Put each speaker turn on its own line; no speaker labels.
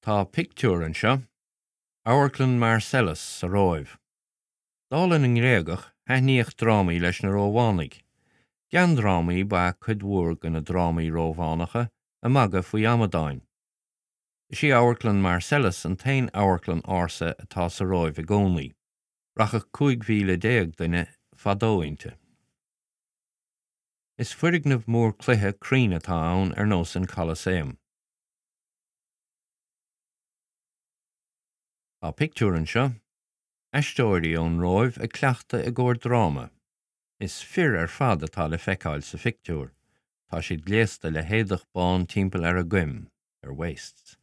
Tá pictiúr anseo, Amharclann Marcellus sa Róimh. Dála na nGréagach, thaitníodh drámaí leis na Rómhánaigh. Geandrámaí ba ea cuid mhór de na drámaí Rómhánacha, ag magadh faoi amadáin. Is í Amharclann Marcellus an t-aon amharclann ársa atá sa Róimh i gcónaí. Rachadh 15,000 duine fadó inti. Is foirgneamh mór cloiche cruinn atá ann ar nós an Colosseum. Tá pictiúr anseo, aisteoirí ón Róimh ag cleachtadh i gcomhair dráma. Is fir ar fad atá le feiceáil sa phictiúr. Tá siad gléasta le héadach bán timpeall ar a gcoim, their waists.